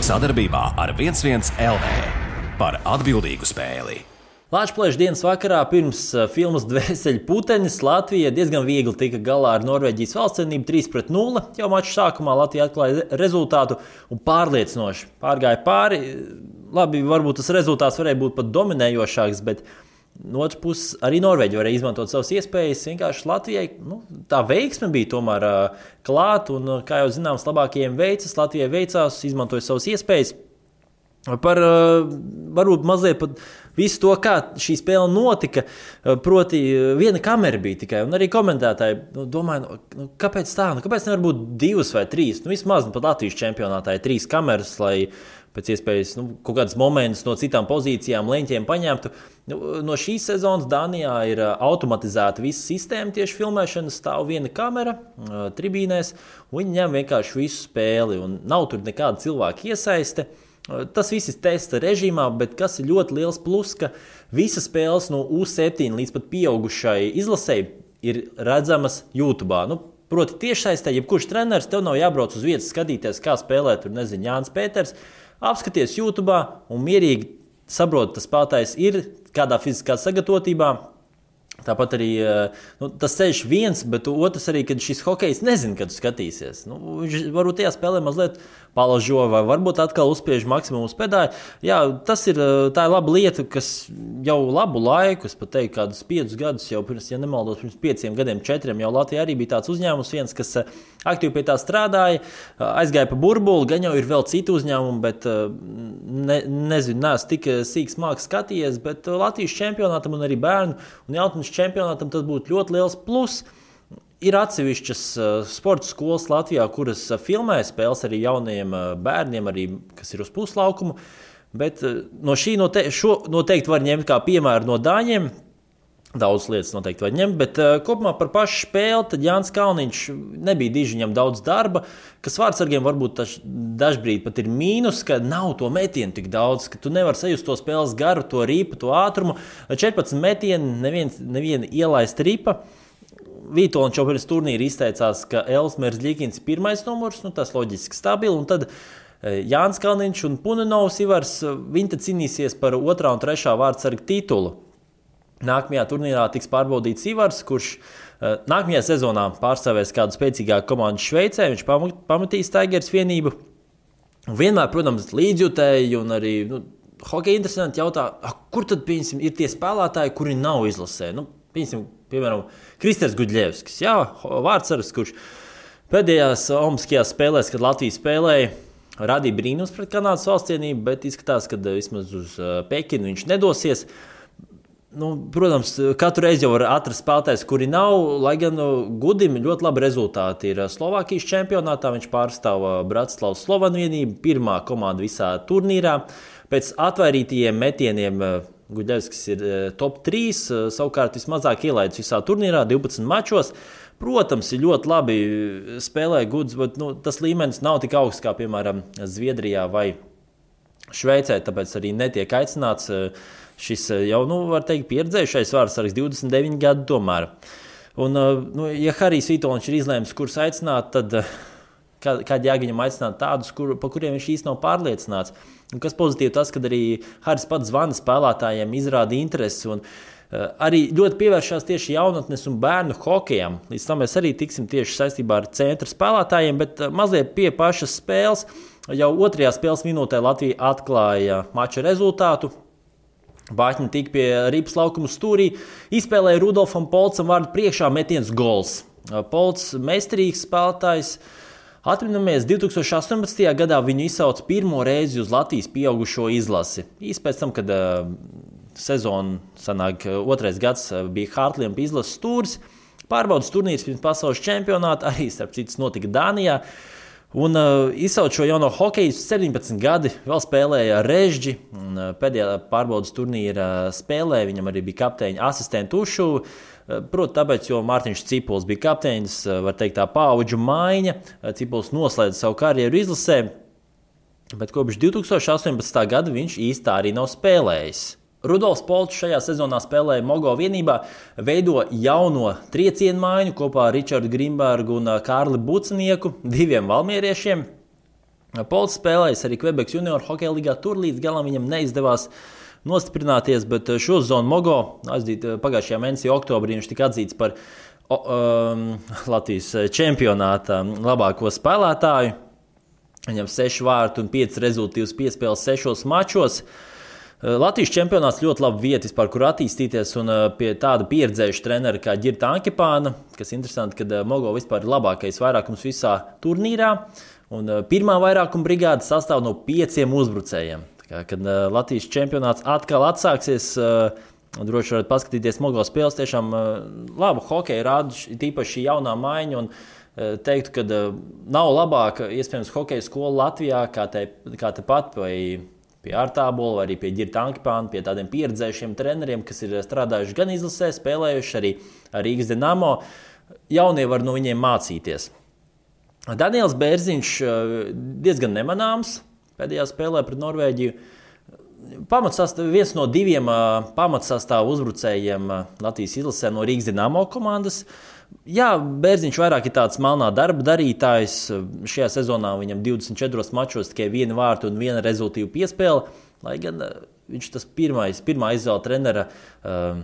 Sadarbībā ar 11 LV par atbildīgu spēli. Lāčplēša dienas vakarā pirms filmas Dvēseļu putenis Latvija diezgan viegli tika galā ar Norvēģijas valstsienību 3-0. Jau maču sākumā Latvija atklāja rezultātu un pārliecinoši pārgāja pāri. Labi, varbūt tas rezultāts varēja būt pat dominējošāks, bet no otras puses arī Norvēģi varēja izmantot savas iespējas. Vienkārši Latvijai tā veiksme bija tomēr klāt, un, kā jau zināms, labākajiem veicas. Latvijai veicās, izmantoja savas iespējas. Par varbūt mazliet pat visu to, kā šī spēle notika, proti viena kamera bija tikai, un arī komentētāji domāja, kāpēc tā, kāpēc nevar būt 2 vai 3, vismaz pat Latvijas čempionātā ir 3 kameras, lai pēc iespējas kaut kādas momentus no citām pozīcijām, leņķiem paņemtu. No šīs sezonas Dānijā ir automatizēta visa sistēma tieši filmēšanas, stāv viena kamera tribīnēs, un viņi ņem vienkārši visu spēli, un nav tur nekāda cilvēka iesaiste. Tas viss ir testa režīmā, bet kas ir ļoti liels plus, ka visas spēles no U7 līdz pat pieaugušai izlasēji ir redzamas YouTube. Proti tiešsaistē, jebkurš treneris, tev nav jābrauc uz vietas skatīties, kā spēlē tur, Jānis Pēters, apskaties YouTube un mierīgi saprot, tas spēlētājs ir kādā fiziskā sagatavotībā. Tāpat arī tas ceļš viens, bet otrs arī, kad šis hokejs nezina, kad skatīsies. Viņš varbūt tajā spēlē mazliet palažo vai varbūt atkal uzspiež maksimumu uz pedāļu. Jā, tā ir laba lieta, kas jau labu laiku, es pat teiktu, kādus 5 gadus jau pirms, ja nemaldos, pirms 5 gadiem, 4, jau Latvijā arī bija tāds uzņēmums viens, kas aktīvi pie tā strādāja, aizgāja pa burbuli, gan jau ir vēl citi uzņēmumi, bet nezinu, neesmu tik sīks māks skatījies, bet Latvijas čempionātam un arī bērnu un jaunatnes čempionātam tas būtu ļoti liels plus. Ir atsevišķas sporta skolas Latvijā, kuras filmē spēles arī jaunajiem bērniem, arī, kas ir uz puslaukumu, bet no šī noteikti var ņemt kā piemēru no dāņiem. Daudz lietas noteikti var ņemt, bet kopumā par pašu spēli tad Jānis Kalniņš nebija diži, viņam daudz darba, kas vārdsargiem varbūt dažbrīd pat ir mīnus, ka nav to metienu tik daudz, ka tu nevar sajust to spēles garu, to ripu, to ātrumu. 14 metieni, neviena ielaista ripa. Vītoliņš jau pirms turnīra izteicās, ka Elsmers Ļikins ir pirmais numurs, tas loģiski stabili, un tad Jānis Kalniņš un Punenovs Ivars, viņi tad cīnīsies par 2. un 3. vārdsarga titulu. Nākamajā turnīrā tiks pārbaudīts Ivars, kurš nākamajā sezonā pārstāvēs kādu spēcīgāku komandu Šveicē, viņš pamatīs Tigers vienību. Vienmēr, protams, līdzjutēji un arī hokeja interesanti jautā, kur tad, piemēram, ir tie spēlētāji, kuri nav izlasē. Piemēram, Kristers Gudļevskis, vārdsargs, kurš pēdējās olimpiskajās spēlēs, kad Latvija spēlēja, radīja brīnums pret Kanādas valstsienību, bet izskatās, ka vismaz uz Pekinu viņš nedosies. Protams, katru reizi jau var atrast spēlētājs, kuri nav, lai gan Gudim ļoti labi rezultāti ir Slovākijas čempionātā. Viņš pārstāv Bratislavas Slovanu vienību, pirmā komanda visā turnīrā. Pēc atvairītajiem metieniem Gudļevskis ir top 3, savukārt vismazāk ielaidis visā turnīrā, 12 mačos. Protams, ir ļoti labi spēlē Guds, bet tas līmenis nav tik augsts kā, piemēram, Zviedrijā vai Šveicē, tāpēc arī netiek aicināts šis jau, var teikt, pieredzējušais vārdsargs 29 gadu tomēr. Un, ja Harijs Vītoliņš ir izlēmis, kurus aicināt, tad kādi jāgaņam aicināt tādus, pa kuriem viņš īsti nav pārliecināts. Un kas pozitīvi tas, kad arī Harijs pats zvana spēlētājiem, izrāda interesi un arī ļoti pievēršās tieši jaunatnes un bērnu hokejam. Līdz tam mēs arī tiksim tieši saistībā ar centra spēlētājiem, bet mazliet pie pašas spēles. Jau 2. spēles minūtē Latvija atklāja mača rezultātu. Bāķņi tika pie ripas laukuma stūrī, izspēlēja Rudolfam Polcam vārdu priekšā metiens gols. Polcs meistarīgs spēlētājs. Atminamies, 2018. gadā viņu izsauca pirmo reizi uz Latvijas pieaugušo izlasi. Īsti pēc tam, kad sezona sanāk 2. gads bija Hārtliempa izlases stūris, pārbaudas turnīrs pirms pasaules čempionāta, arī starp citas notika Dānijā. Un izsauc šo jauno hokeju 17 gadi, vēl spēlēja Režģi, un pēdējā pārbaudas turnīra spēlē viņam arī bija kapteiņa asistenta Ušuva. Proti, tāpēc, jo Mārtiņš Cipuls bija kapteinis, var teikt tā paudžu maiņa, Cipuls noslēdza savu karjeru izlasē, bet kopš 2018. gada viņš īsti arī nav spēlējis. Rudolfs Polčs šajā sezonā spēlēja Mogo vienībā, veido jauno triecienu maiņu kopā ar Ričardu Grimbergu un Kārli Bucenieku, 2 valmieriešiem. Pols spēlējis arī Quebec Junior hokeja līgā, tur līdz galam viņam neizdevās nostiprināties, bet šo sezonu Mogo pagājušajā mēnesī oktobrī viņš tika atzīts par Latvijas čempionāta labāko spēlētāju. Viņam 6 vārtu un 5 rezultīvas piespēles 6 mačos. Latvijas čempionāts ļoti laba vieta, kur attīstīties, un pie tāda pieredzējuša trenera kā Ģirta Ankepāna, kas interesanti, ka Mogo vispār ir labākais vairākums visā turnīrā, un pirmā vairākuma brigāde sastāv no 5 uzbrucējiem. Kad Latvijas čempionāts atkal atsāksies, droši varat paskatīties Mogo spēles, tiešām labu hokeju rāda, tīpaši šī jaunā maiņa, un teiktu, ka nav labāka, iespējams, hokeja skola Latvijā, kā tepat vai pie Ārtābola, vai arī pie Ģirta Ankepāna, pie tādiem pieredzējušiem treneriem, kas ir strādājuši gan izlasē, spēlējuši arī Rīgas Dinamo. Jaunie var no viņiem mācīties. Daniels Bērziņš diezgan nemanāms pēdējā spēlē pret Norvēģiju. Viens no 2 pamatsastāvu uzbrucējiem Latvijas izlasē no Rīgas Dinamo komandas. Jā, Bērziņš vairāk ir tāds melnā darba darītājs. Šajā sezonā viņam 24 mačos tikai 1 vārtu un 1 rezultīvu piespēle, lai gan viņš tas pirmā izvēle trenera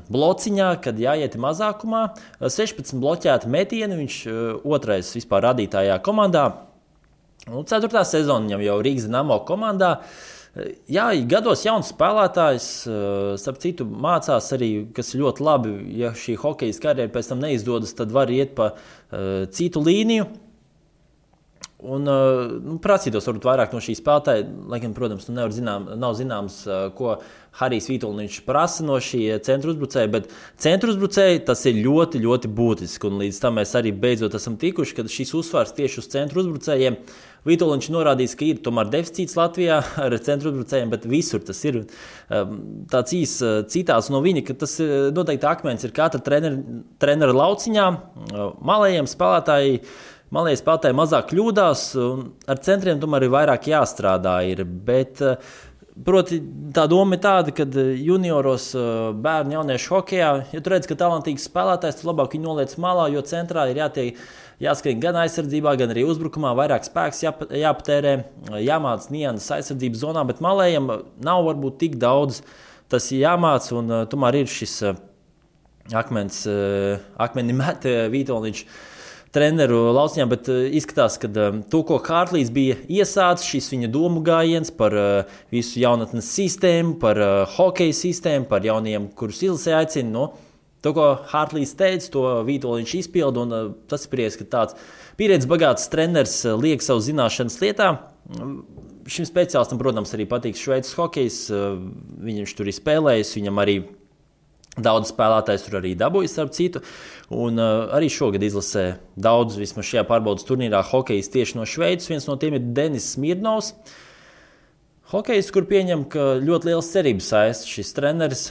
blociņā, kad jāiet mazākumā. 16 bloķēti metieni, viņš otrais vispār radītājā komandā. 4. sezona viņam jau Rīgas Dinamo komandā. Jā, gados jauns spēlētājs, starp citu, mācās arī, kas ir ļoti labi, ja šī hokejas karjera pēc tam neizdodas, tad var iet pa citu līniju. Un prasītos varbūt vairāk no šī spēlētāja, lai gan, protams, nav zināms, ko Harijs Vītoliņš prasa no šī centra uzbrucēja, bet centra uzbrucēja tas ir ļoti, ļoti būtiski, un līdz tam mēs arī beidzot esam tikuši, kad šis uzsvars tieši uz centra uzbrucējiem. Vītoliņš norādījis, ka ir tomēr deficīts Latvijā ar centra uzbrucējiem, bet visur tas ir tāds citāts no viņa, ka tas noteikti akmens ir katra trenera lauciņā. Malējie spēlētāji mazāk kļūdās, un ar centriem tomēr ir vairāk jāstrādā. Bet, proti, tā doma ir tāda, ka junioros bērnu jauniešu hokejā, ja tu redz, ka talantīgs spēlētājs, tu labāk viņu noliec malā, jo centrā ir jāskrien gan aizsardzībā, gan arī uzbrukumā, vairāk spēks jāpatērē, jāmāc nianses aizsardzības zonā, bet malējiem nav varbūt tik daudz tas jāmāc, un tomēr ir šis akmeni met Vītoliņš treneru lauciņā, bet izskatās, ka to, ko Hārtlīs bija iesācis, šis viņa domu gājiens par visu jaunatnes sistēmu, par hokeja sistēmu, par jauniem, kurus izlasē aicina, to, ko Hārtlīs teica, to Vītoliņš izpilda, un tas ir prieks, ka tāds pieredzes bagāts treneris liek savu zināšanas lietā. Šim speciālistam, protams, arī patīk Šveices hokejs, viņš tur ir spēlējis, viņam arī daudz spēlētājs tur arī dabūjis, starp citu, un arī šogad izlasē daudz, vismaz šajā pārbaudas turnīrā, hokejs tieši no Šveices. Viens no tiem ir Denis Smirnovs. Hokejs, kur pieņem, ka ļoti liels cerības saista šis treneris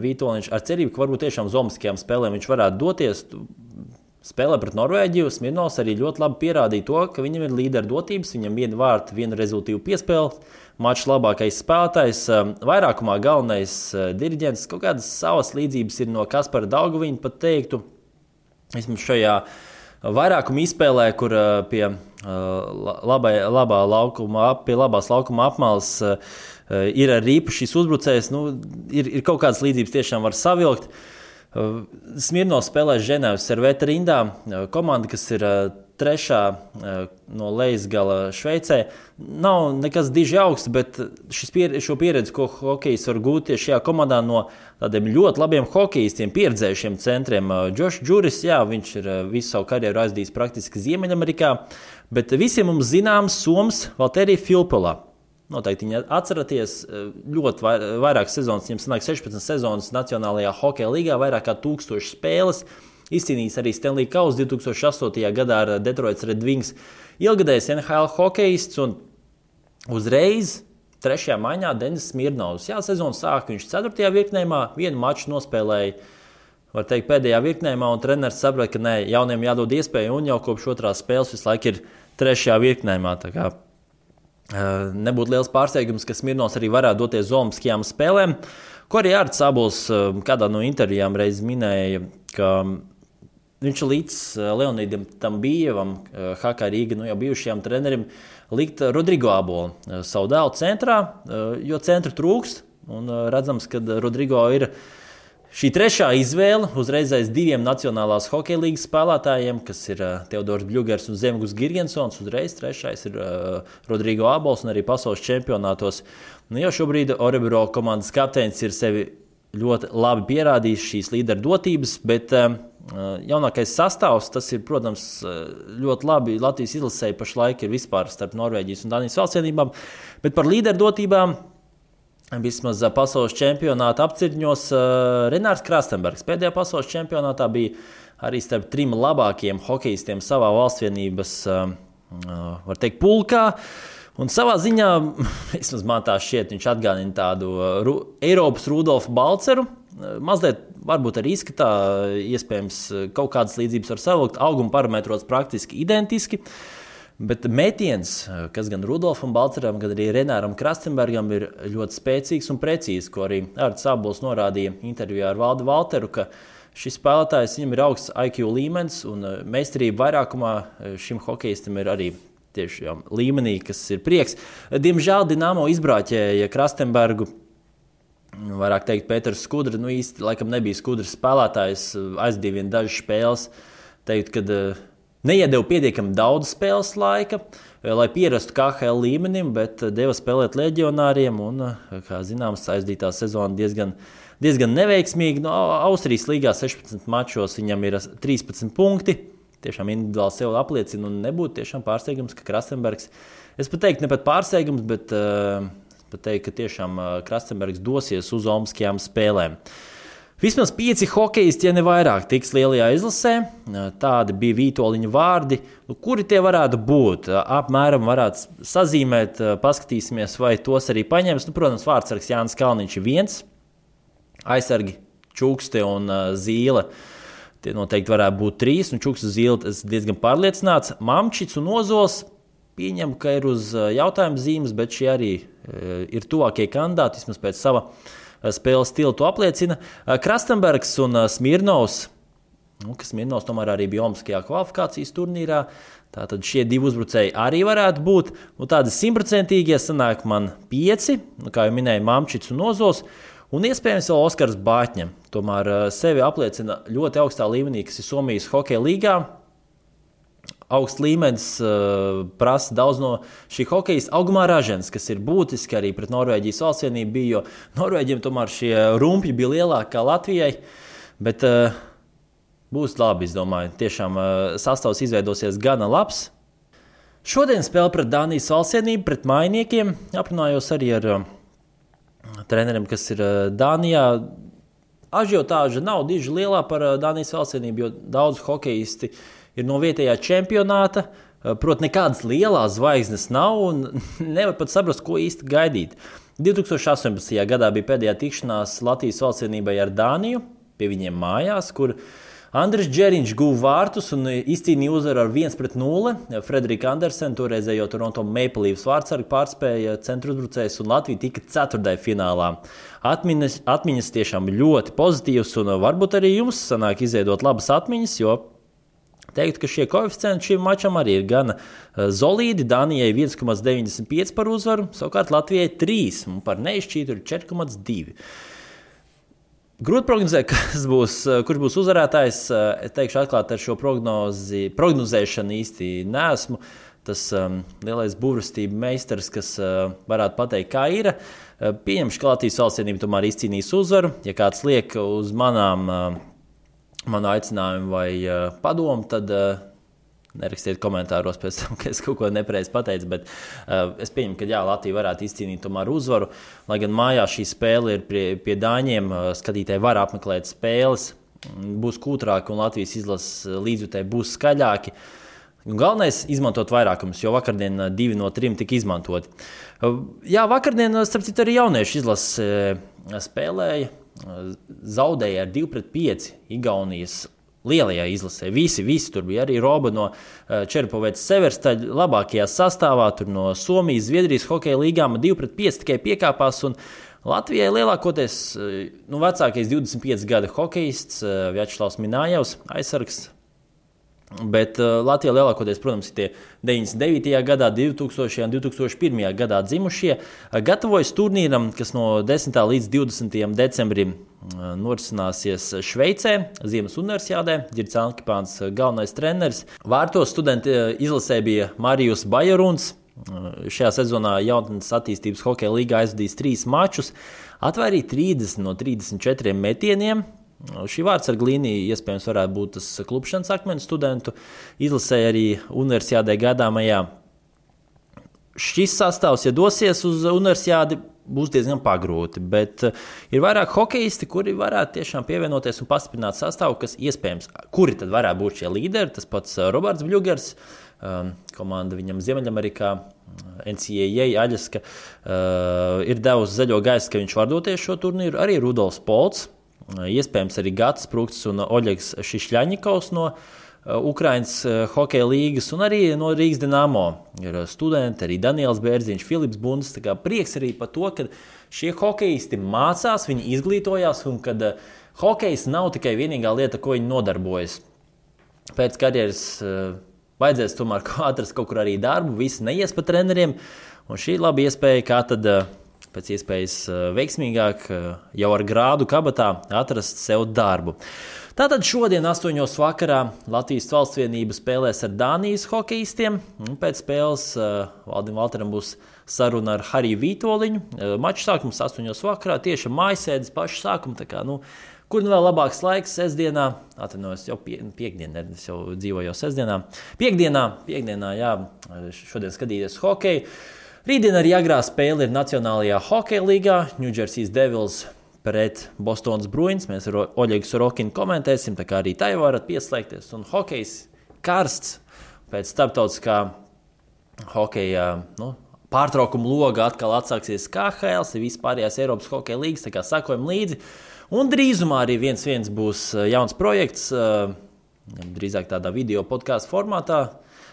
Vītoliņš ar cerību, ka varbūt tiešām uz olimpiskajām spēlēm viņš varētu doties. Spēlē pret Norvēģiju. Smirnovs arī ļoti labi pierādīja to, ka viņam ir līderu dotības, viņam 1 vārtu, 1 rezultīvu piespēli, mačs labākais spēlētājs, vairākumā galvenais diriģents. Kaut kādas savas līdzības ir no Kaspara Daugaviņa, pat teiktu, vismaz šajā vairākuma izspēlē, kur pie labās laukuma apmales ir arī īpašs uzbrucējs. Ir kaut kādas līdzības tiešām var savilkt. Smirnovs spēlē Ženēvas Serveta rindā, komanda, kas ir 3. no lejas gala Šveicē. Nav nekas diži augsts, bet šo pieredzi, ko hokejs var gūt tieši šajā komandā no tādiem ļoti labiem hokejistiem, pieredzējušiem centriem. Džošs Džuris, jā, viņš ir visu savu karjeru aizdījis praktiski Ziemeļamerikā, bet visiem mums zināms Soms Valterija Filppula. Noteikti viņi atceraties, ļoti vairākas sezonas, viņam sanāk 16 sezonas Nacionālajā hokeja līgā, vairāk kā 1000 spēles. Izcīnījis arī Stanley Kausu 2008. gadā ar Detroits Red Wings. Ilgadējs NHL hokejists, un uzreiz 3. maiņā Denis Smirnovs. Jā, sezonu sāka viņš 4. virknējumā, 1 maču nospēlēja, var teikt, pēdējā virknējumā, un treneris saprata, ka jauniem jādod iespēju, un jau kopš 2. spēles visu laiku ir 3. virknējumā. Tā kā nebūtu liels pārsteigums, ka Smirnovs arī varētu doties uz olimpiskajām spēlēm, ko arī Ārts Sabols kādā no intervijām reiz minēja, ka viņš līdz Leonīdam Tambījevam, HK Rīga, jau bijušajam trenerim, likt Rodrigo Abolu savu dēlu centrā, jo centra trūkst. Un redzams, ka Rodrigo ir šī trešā izvēle uzreiz aiz diviem Nacionālās hokeja līgas spēlētājiem, kas ir Teodors Bļugers un Zemgus Girgensons. Uzreiz trešais ir Rodrigo Abols un arī pasaules čempionātos. Jau šobrīd Orebro komandas kapteinis ir sevi ļoti labi pierādījis šīs līderu dotības, bet jaunākais sastāvs, tas ir, protams, ļoti labi Latvijas izlasēji pašlaik ir vispār starp Norvēģijas un Danijas valstsienībām, bet par līderu dotībām vismaz pasaules čempionāta apcirņos Renārs Krastenbergs. Pēdējā pasaules čempionātā bija arī starp 3 labākajiem hokejistiem savā valstsvienības, var teikt, pulkā. Un savā ziņā, vismaz man tā šķiet, viņš atgādina tādu Eiropas Rudolfu Balceru. Mazliet varbūt arī izskatā, iespējams, kaut kādas līdzības var savilkt. Auguma parametros praktiski identiski. Bet metiens, kas gan Rudolfam Balceram, gan arī Renāram Krastenbergam ir ļoti spēcīgs un precīzs, ko arī Ārts Abols norādīja intervijā ar Valdi Valteru, ka šis spēlētājs viņam ir augsts IQ līmenis un meistarība vairākumā šim hokejistam ir arī tieši līmenī, kas ir prieks. Diemžēl Dinamo izbrāķēja Krastenbergu, vairāk teikt Pēters Skudra, īsti laikam nebija Skudras spēlētājs, aizdīja vien dažas spēles, teikt, kad neiedeva pietiekami daudz spēles laika, lai pierastu KHL līmenim, bet deva spēlēt leģionāriem un, kā zināms, aizdītā sezona diezgan neveiksmīgi. Austrijas līgā 16 mačos viņam ir 13 punkti. Tiešām individuāli sev apliecina un nebūtu tiešām pārsteigums, ka Krastenbergs, es pat teiktu, ne pat pārsteigums, bet pat teikt, ka tiešām Krastenbergs dosies uz olimpiskajām spēlēm. Vismaz 5 hokejisti, ja ne vairāk, tiks lielajā izlasē. Tādi bija Vītoliņa vārdi. Kuri tie varētu būt? Apmēram varētu sazīmēt, paskatīsimies, vai tos arī paņems. Protams, vārdsargs Jānis Kalniņš ir viens, aizsargi Čukste un Zīle. Tie noteikti varētu būt 3, un Čuks uz Zīle es diezgan pārliecināts. Mamčits un Ozols pieņem, ka ir uz jautājumu zīmes, bet šie arī ir tuvākie kandidāti, vismaz pēc sava spēles stila to apliecina. Krastenbergs un Smirnovs, kas Smirnovs tomēr arī bija olimpiskajā kvalifikācijas turnīrā, tātad šie 2 uzbrucēji arī varētu būt. Tādi 100% sanāk man 5, kā jau minēju, Mamčits un Ozols. Un iespējams vēl Oskars Bāķņa. Tomēr sevi apliecina ļoti augstā līmenī, kas ir Somijas hokeja līgā. Augsts līmenis prasa daudz no šī hokejista. Augumā Ražens, kas ir būtiski arī pret Norvēģijas valstsienību bija, jo Norvēģiem tomēr šie rumpļi bija lielāki kā Latvijai. Bet būs labi, es domāju. Tiešām sastāvs izveidosies gana labs. Šodien spēle pret Dānijas valstsienību, pret mainiekiem. Aprunājos arī ar treneriem, kas ir Dānijā. Ažiotāža nav diži lielā par Dānijas valstsienību, jo daudz hokejisti ir no vietējā čempionāta. Protams, nekādas lielās zvaigznes nav un nevar pat saprast, ko īsti gaidīt. 2018. gadā bija pēdējā tikšanās Latvijas valstsienībai ar Dāniju, pie viņiem mājās, kur Andris Džeriņš guva vārtus un izcīnīja uzvaru ar 1-0. Frederika Andersena, toreizējo Toronto Maple Leafs vārdsargu, pārspēja centru uzbrucējs un Latvija tika 4. finālā. Atmiņas tiešām ļoti pozitīvas un varbūt arī jums sanāk izveidot labas atmiņas, jo teiktu, ka šie koeficienti šim mačam arī ir gana solīdi. Dānijai 1,95 par uzvaru, savukārt Latvijai 3 un par neizšķītu ir 4,2. Grūti prognozēt, kurš būs uzvarētājs. Es teikšu atklāti, ar šo prognozēšanu īsti neesmu. Tas lielais burvestība meistars, kas varētu pateikt, kā ir. Pieņemšu, ka Latvijas valstsienība tomēr izcīnīs uzvaru. Ja kāds liek uz manu aicinājumu vai padomu, tad nerakstiet komentāros pēc tam, ka es kaut ko nepareizi pateicu, bet es pieņemu, ka jā, Latvija varētu izcīnīt tomēr uzvaru. Lai gan mājās šī spēle ir pie Dāņiem, skatītāji var apmeklēt spēles, būs kūtrāki un Latvijas izlases līdzjutēji būs skaļāki. Galvenais – izmantot vairākumus, jo vakardien 2 no 3 tika izmantoti. Jā, vakardien, starp citu, arī jauniešu izlase spēlēja, zaudēja ar 2-5 Igaunijas lielajā izlasē. Visi tur bija arī Roba no Čerpovētas Severstaļa labākajā sastāvā, tur no Somijas, Zviedrijas hokeja līgām 2-5 tikai piekāpās, un Latvijai lielākoties vecākais 25 gada hokejists Vjačeslavs Minājevs, aizsargs, Bet Latvijā lielākoties, protams, ir tie 99. gadā, 2000. un 2001. gadā dzimušie. Gatavojas turnīram, kas no 10. līdz 20. decembrim norisināsies Šveicē, Ziemas universiādē. Girts Ankipāns galvenais treneris. Vārtos studenti izlasē bija Marijus Bajaruns. Šajā sezonā jaunatnes attīstības hokeja līgā aizvadījis 3 mačus, atvairīja 30 no 34 metieniem. Šī vārdsarga līnija iespējams varētu būt tas klupšanas akmens studentu izlasē arī universiādē gaidāmajā. Šis sastāvs, ja dosies uz universiādi, būs diezgan pagrūti, bet ir vairāk hokeisti, kuri varētu tiešām pievienoties un pastiprināt sastāvu, kas iespējams, kuri tad varētu būt šie līderi. Tas pats Roberts Bļugers, komanda viņam Ziemeļamerikā, NCAA Aļaska, ir devusi zaļo gaisu, ka viņš var doties šo turnīru. Arī Rudolfs Polts, iespējams arī Gatis Prukts un Oļegs Šišļaņikovs no Ukrainas hokeja līgas un arī no Rīgas Dinamo ir studenti, arī Daniels Bērziņš, Filips Bundes. Tā kā prieks arī par to, ka šie hokeisti mācās, viņi izglītojās un kad hokejs nav tikai vienīgā lieta, ko viņi nodarbojas. Pēc karjeras vajadzēs tomēr atrast kaut kur arī darbu, visi neies pa treneriem, un šī ir laba iespēja, kā tad pēc iespējas veiksmīgāk jau ar grādu kabatā atrast sev darbu. Tātad šodien 8. vakarā Latvijas Valstsvienība spēlēs ar Dānijas hokeistiem. Pēc spēles Valdim Valteram būs saruna ar Hariju Vītoliņu. Mačs sākums 8. vakarā, tieši mājasēdes pašu sākumu. Tā kā, kur vēl labāks laiks sestdienā? Atvainojos, jau piekdienā, es jau dzīvoju jau sestdienā. Piekdienā, jā, šodien skatīties hokeju. Rītdien arī agrā spēle ir Nacionālajā hokeja līgā. New Jersey Devils pret Bostonas Bruins. Mēs ar Oļegu Sorokinu komentēsim, tā kā arī tai varat pieslēgties. Un hokejs karsts pēc starptautiskā hokeja pārtraukuma loga atkal atsāksies KHL, vispārējās Eiropas hokeja līgas, tā kā sakojam līdzi. Un drīzumā arī 1-1 būs jauns projekts, drīzāk tādā video podkāstu formātā.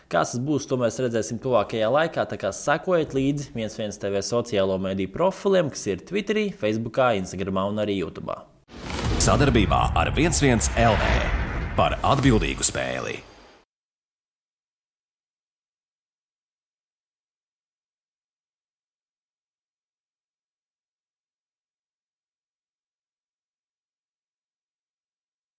Kas tas būs, to mēs redzēsim tuvākajā laikā, tā kā sekojiet līdzi 1-1 TV sociālo mediju profiliem, kas ir Twitterī, Facebookā, Instagramā un arī YouTube. Sadarbībā ar 1-1 LV par atbildīgu spēli.